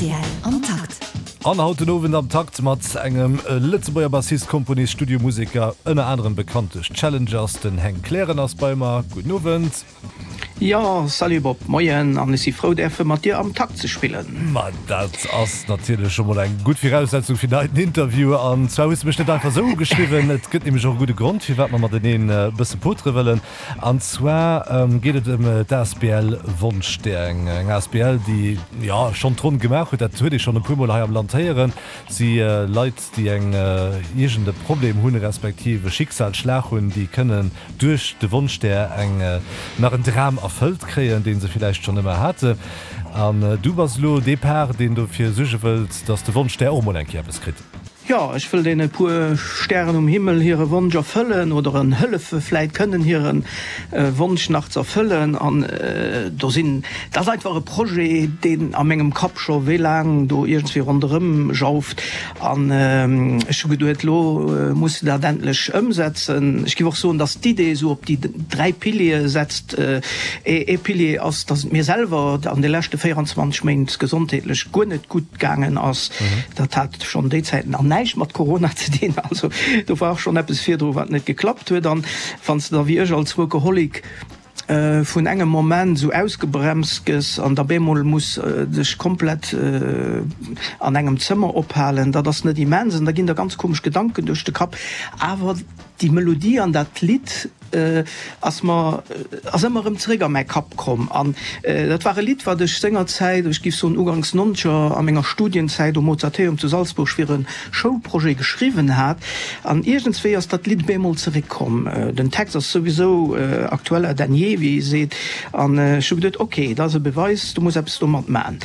Rtl am Takt. An haut den Owend am Takt mat engem Lëtzebuerger Bassist, Komponist, Studiomuseker, ënner anerem bekannt duerch d'Challengers, den Heng Kleren ass bei mer. Gudden Owend. Jo, salut Bob, moien an ech si frou däerfe mat dir am Takt ze spillen. Ma dat ass natierlech scho mol eng gutt Viraussetzung fir den heiten Interview. An zwar hues de mech net einfach esou ugeschriwwen, et gëtt nämlech och e gudde Grond firwat mer mateneen e bësse potere wëllen. An zwar geet et ëm d'ASBL Wonschstär, eng asbl, déi jo schonn d'Ronn gemaach huet. Dat huet ee schonn e puermol hei am Land héieren. Si Leit, déi eng iergend e Problem hunn, respektiv e Schicksalsschlag hunn, déi kënnen duerch de Wonschstär eng nach en Dram erfëllt kréien, dee se villäicht schonn ëmmer haten. An du bass elo dee Par, deen dofir suerge wëllt, datt de Wonschstär och emol eng Kéier eppes kritt. Jo, ech wëll deene puer Stären um Himmel hire Wonsch erfëllen oder en hëllefe vläit kënnen hire Wonsch nach z'erfëllen. An do sinn, dat ass einfach e Projet, deen a mengem Kapp scho wéi laang do iergendswéi ronderëm jauft. An ech hu geduet, lo muss de dat endlech ëmsetzen. Ech géif och soen, datt d'Idee esou op déi 3 Piliere setzt. Ee Pilier ass, datt et mir selwer an de leschte 24 Méint gesondheetlech guer net gutt gaangen ass. Dat hat schonn déi Zäiten an näischt mat Corona ze dinn, also do war och schonn eppes virdru wat net geklappt huet. An wann s de da wéi ech als Workaholic vun engem Moment esou ausgebremst gëss an da bemol muss dech komplett an engem Zëmmer ophalen, dat ass net immens an da ginn der ganz komesch Gedanken duerch de Kapp. Awer déi Melodie an dat Lidd ass mer, ass ëmmer erëm zeréck a mäi Kapp komm. An dat war e Lidd, wat ech sengerzäit, ech géif soen uganks nonzeger, a menger Studienzäit um Mozarteum zu Salzburg fir e Schoulprojet geschriwwen hat. An iergendswéi ass dat Lidd bemol zeréckkomm. Den Text ass souwisou aktueller denn je, wéi ee seet. An ech hu geduet, ok, dat ass e Beweis, du muss eppes domat man.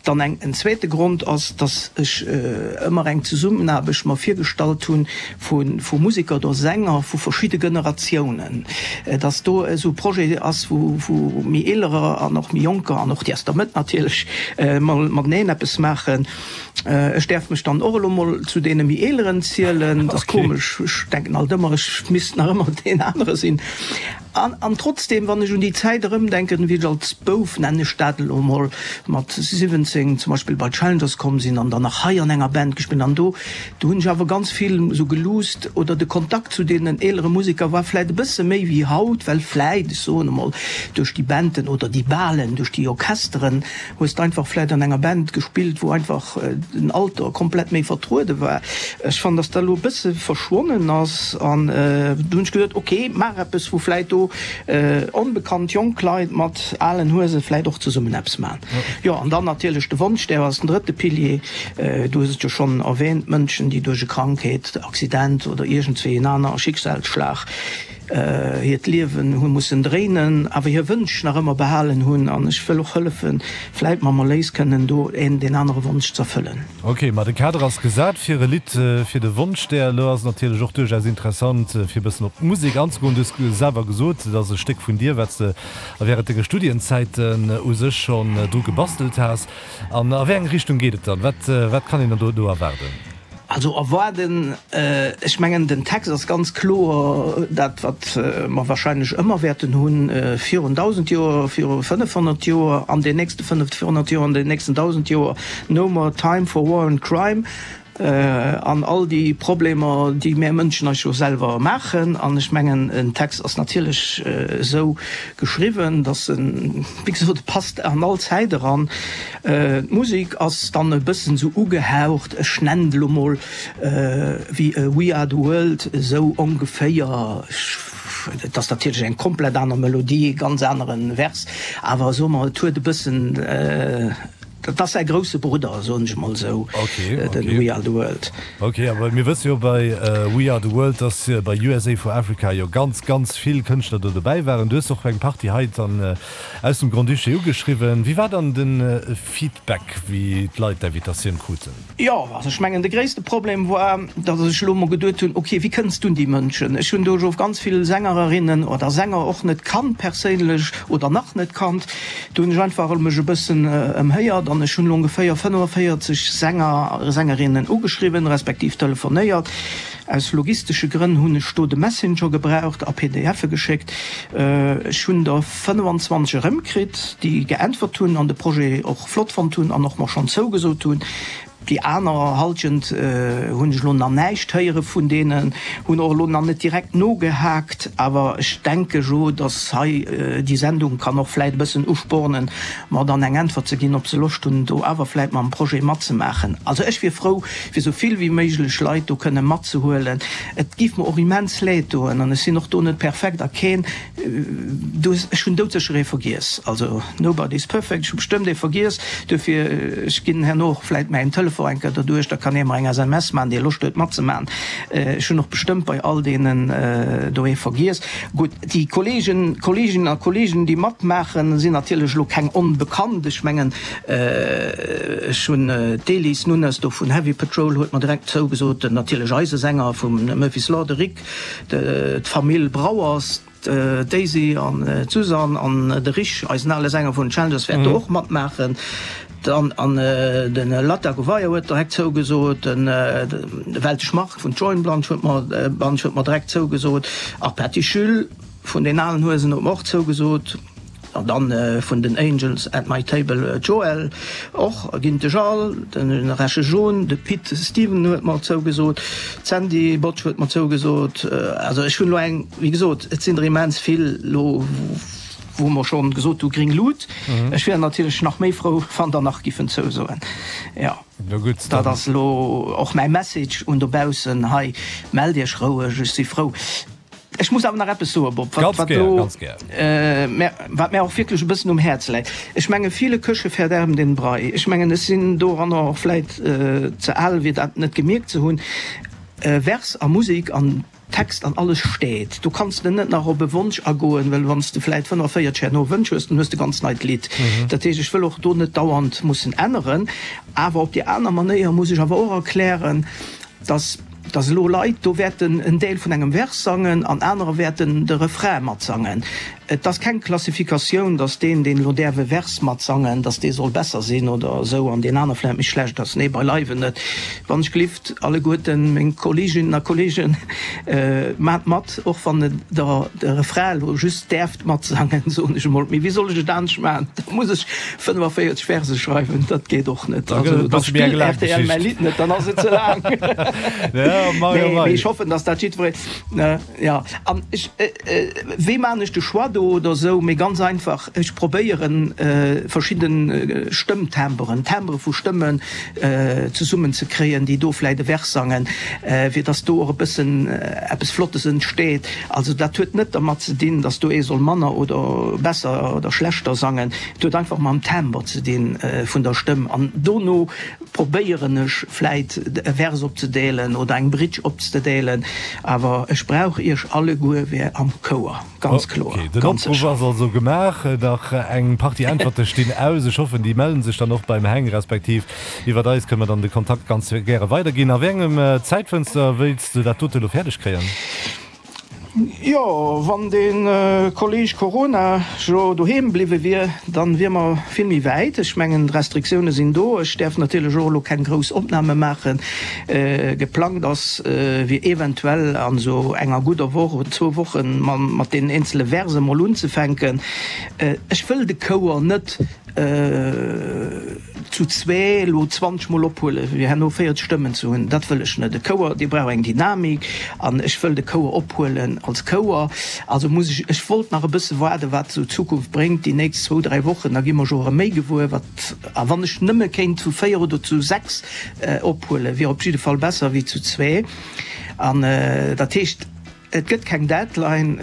Dann eng, en zweete Grond ass, dass ech ëmmer eng Zesummenaarbecht mer virgestallt hunn, vu Museker oder Sänger vu verschidde Generatiounen, dass do esou e Projet ass, wou méi Eelerer an och méi Jonker an och déi aus der Mëtt natierlech mol mateneen eppes maachen. Ech däerf mech dann och elo mol zu deene méi Eeleren zielen. Dat ass komesch, ech denken alt ëmmer, ech misst nach ëmmer deen anere sinn. An trotzdem, wann ech un déi Zäit erëmdenken, wéi ech als Bouf, nennen ech dat elo emol, mat 17 zum Beispill bei d'Challengers komm sinn an dann nach hei an enger Band gespillt an do, do hunn ech awer ganz vill esou geluusst oder de Kontakt zu deenen eelere Museker war vläit e bësse méi wéi haut, well vläit, ech soen emol, duerch déi Banden oder déi Balen, duerch déi Orchesteren hues de einfach vläit an enger Band gespillt, wou einfach den Alter komplett méi vertruede war. Ech fannen, dass dat elo e bësse verschwonnen ass an du hunn ech geduet, ok, maach eppes, wou vläit do onbekannt jonk Leit mat alen Huese vläit och zesummen eppes maachen. Jo, an dann natierlech de Wonsch, där ass den drëtte Pilier, du hues et jo schonn erwähnt, Mënschen, déi duerch e Krankheet, Accident oder iergendswéi en aner Schicksalsschlag hiert Liewen hu mussen dréinen, awer hir Wënsch nach ëmmer behalen hunn. An ech wëll och hëllefen, vläit mam Erléis kënnen do een deen anere Wonsch z'erfëllen. Ok, ma de Kader ass gesat fir e Lidd fir de Wonschstär. Elo ass et natierlech och duerchaus interessant, fir e bëssen op d'Musek anzegoen. Du hues selwer gesot, et ass e Stéck vun dir, wat s de wärend denge Studienzäiten u sech schonn dru gebastelt has. An a wéi eng Richtung geet et dann? Wat, wat kann een dann do do erwaarden? Also erwaarden, ech mengen den Text ass ganz kloer dat wat mer wahrscheinlech ëmmer wäerten hunn, virun 1.000 Joer, viru 500 Joer, an den nächste 500 Joer, an den nächsten 1.000 Joer, no more time for war and crime. An all déi Problemer, déi mär Mënschen eis jo selwer maachen. An ech mengen, en Text ass natierlech esou geschriwwen, datt en, wéi gesot, e passt an all Zäit eran. D'Musek ass dann e bëssen esou ugehaucht, ech nennen et elo mol wéi We Are The World, esou ongeféier. Et ass natierlech eng komplett aner Melodie, e ganz anere Vers, awer soe mer, et huet e bëssen, Dat ass säi grousse Brudder, soen ech mol esou, den We Are The World. Ok, awer mir wësse jo bei We Are The World, dass bei USA for Africa jo ganz, ganz vill Kënschtler do dobäi waren. Du hues och eng Partie hei dann aus dem Grand-Duché ugeschriwwen. Wéi war dann de Feedback, wéi d'Leit d'Invitatioun kruten? Jo, also ech mengen de gréisste Problem war, datt ech elo mol geduet hunn, ok, wéi kënns du un déi Mënschen? Ech hunn do jo ganz vill Sängerinnen oder Sänger och net kannt perséinlech oder nach net kannt. Do hunn ech einfach mech e bëssen ëmhéiert an ech hunn elo ongeféier 45 Sänger, Sängerinnen ugeschriwwen, respektiv telefonéiert. Aus logistesche Grënn hunn ech do de Messenger gebraucht a PDFe geschéckt. Ech hunn der 25 erëmkritt, déi geäntwert hunn an de Projet och flott fonnt hunn an och mer schonn zougesot hunn. Déi aner Halschent hunn ech elo nach näischt héiere vun deenen, hunn och elo nach net direkt nogehaakt. Awer ech denke jo, datt hei déi Sendung kann och vläit e bëssen uspornen, mer dann eng Äntwert ze ginn, ob se Loscht hunn, do awer vläit mam Projet matzemaachen. Also ech wier frou, fir esou vill wéi méiglech Leit do kënne matzehuelen. Et géif mer och immens leed doen, an ech sinn och do net perfekt a keen, du, ech hunn doudsécher ee vergiess, also nobody is perfect, ech hu bestëmmt ee vergiess, duerfir ech ginn herno och vläit mäin Telefon eng Kéier derduerch, da kann ee mer eng SMS maachen, dee Loscht huet matzemaachen. Ech hunn och bestëmmt bei all deenen do ee vergiess. Gutt, déi Kolleegen, Kolleeginnen a Kolleegen, déi matmaachen, sinn natierlech elo keng Onbekannt. Ech mengen, ech hunn d'Elis Nunes do vun Heavy Patrol huet mer direkt zougesot, natierlech eise Sänger vum Murphy's Law, de Rick, d'Famill Brouwers, d'Daisy an d'Suzanne an de Rich, eisen ale Sänger vun den Challengers, wäert do och matmaachen. Dann an de Latta Gouveia huet direkt zougesot, de Weltesch Marc vun Join Blanche huet mer Bunch huet mer direkt zougesot, a Patty Jules vun den alen Huesen huet mer och zougesot, an dann vun den Angels at my Table d'Joëlle och, ginn de Charles, de Resche John, de Pit Steven huet mer zougesot, d'Sandy Botsch huet mer zougesot. Also ech hunn elo eng, wéi gesot, et sinn der immens vill elo, wou mer schonn gesot hu gring Lut. Ech wier natierlech nach méi frou, wann der nach giffen zousoen. Jo, dat ass elo och mäi Message un dobaussen hei, Mellt Iech roueg, ech si frou. Ech muss awer nach eppes soen, Bob, wat, wat elo, wat mär och wierklech e bëssen um Häerz läit. Ech menge viele Köche verderben den Brei. Ech mengen, ech sinn doranner och vläit ze al, fir dat net gemierkt ze hunn. Vers a Musek an Text an alles steet. Do kanns de net nach op e Wonsch agoen, well wann s de vläit 45 herno Wënsch hues, dann hues de ganz neit Lidd. Dat heescht, ech wëll och do net dauernd mussen änneren. Awer op déi aner Manéier muss ech awer och erklären, dass dass elo Leit do wäerten en Deel vun engem Vers sangen an anerer wäerten de Refrain matsangen. Et ass keng Klassifikatioun, dass deen, deen elo däerf e Vers matsangen, dass dee soll besser sinn oder esou an deen aner vläicht méi schlecht ass. Nee, beileiwen net. Wann ech glift, alleguerten meng Kolleeginnen a Kolleegen, maacht mat, och wann Der de Refrain elo just däerft matsangen, soen ech emol. Mee wéi soll ech et anescht maachen? Da muss ech 45 Verse schreiwen, dat geet och net. Also da spillt rtl mäi Lidd net, dann ass et ze laang. Nee, mee ech hoffen, dass dat jiddweree, jo. An ech, wéi maachen ech de Choix do oder esou? Mee ganz einfach, ech probéieren verschidde Stëmmtimberen, Timbre vu Stëmmen zesummen ze kréien, déi do vläit e Vers sangen, fir dass do och e bëssen eppes Flottes entsteet. Also dat huet net dermat ze dinn, dass do ee soll manner oder besser oder schlechter sangen. Et huet einfach mam Timbre ze dinn vun der Stëmm. An dono probéieren ech vläit e Vers opzedeelen oder eng Bridge opzdeelen. Awer ech brauch iech alleguer wär am Chouer, ganz kloer, Okay, den ganz Opruff sécher. ass also gemaach. Nach eng Partie Äntwerte stinn aus. Ech hoffen, déi mellen sech dann och beim Heng, respektiv iwwert eis kënne mer dann de Kontakt ganz gäre weiderginn. A wéi engem Zäitfënster wéilts de dat dote elo fäerdeg kréien? Jo, wann de Kolleg Corona jo doheem bliwwe wier, dann wier mer vill méi wäit. Ech mengen, d'Restriktioune sinn do. Ech däerf natierlech och elo keng grouss Opname maachen. Geplangt ass, wier eventuell an esou enger gudder Woch oder zwou Woche mat deenen eenzele Verse mol unzefänken. Ech wëll de Chouer net zu zwee elo 20 mol ophuelen, fir herno 40 Stëmmen ze hunn, dat wëll ech net. E Chouer, dee brauch eng Dynamik an ech wëll de Chouer ophuelen als Chouer. Also muss ech, ech wollt nach e bësse waarden, wat esou d'Zukunft bréngt, déi nächst zwou, dräi Wochen, da gi mer jo erëm méi gewuer, wat, a wann ech nëmme kéint zu véier oder zu sechs ophuelen, wier op jidde Fall besser wéi zu zwee. An dat heescht. Et gëtt keng Deadline.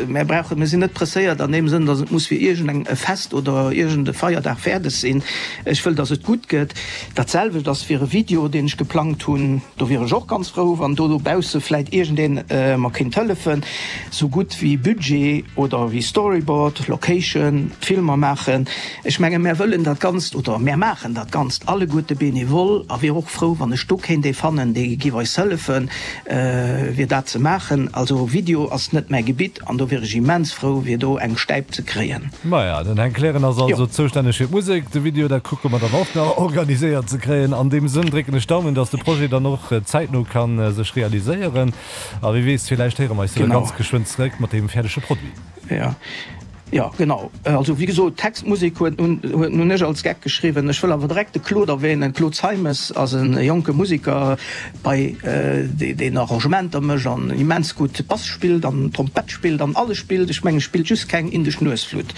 Mär brauchen, mir sinn net presséiert an deem Sënn, datt et muss fir iergend eng e Fest oder iergend e Feierdag fäerdeg sinn. Ech wëll, datt et gutt gëtt. Dat selwecht ass fir e Video, deen ech geplangt hunn. Do wier ech och ganz frou, wann do dobausse vläit iergendeen mer kéint hëllefen, sou gutt wéi Budget oder wéi Storyboard, Location, d'Filmer maachen. Ech menge mär wëllen dat Ganzt oder mär maachen dat Ganzt alleguerte bénévol a wier och frou, wann ech do kéint ee fannen, dee giff eis hëllefen. Fir dat ze maachen. Also Video ass net mäi Gebitt an do wier ech immens frou fir do eng Stäip ze kréien. Maja, den Heng Kleren ass also zoustänneg fir d'Musek, de Video dat kucke mer dann och nach organiséiert ze kréien. An deem Sënn drécken ech d'Daumen, dass de Projet dann och zäitno ka sech realiséieren. A wie weess, villäicht héiere mer eis jo da ganz geschwënn zeréck mat deem fäerdege Produit. Jo. Jo, genau. Also wéi gesot, Text, Musek huet nun huet nun ech als Geck geschriwwen. Ech wëll awer direkt de Claude erwähnen. Claude Zeimes ass e jonke Museker bei deen Arrangementer mécht an immens gutt Bass spillt an Trompett spillt an alles spillt. Ech mengen, spillt just keng indesch Nuesflutt.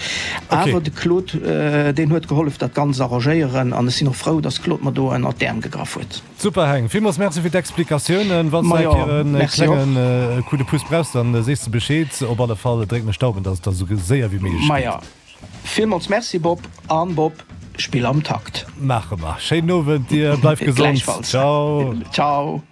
Awer de Claude, deen huet gehollef dat Ganzt arrangéieren an ech sinn och frou, dass Claude mer do ënnert d'Äerm gegraff huet. Super Heng, villmools Merci fir d'Explikatiounen. Wanns de eng Kéier en klengen Coup de pouce brauchs, dann sees de Bescheed. Op alle Fall drécken ech d'Daumen, dass et da sou séier wéi méiglech geet. Maja, villmools Merci Bob, an Bob, spill am Takt. Maache mer. Schéinen Owend dir, bleif gesond. Gläichfalls. Ciao. Ciao.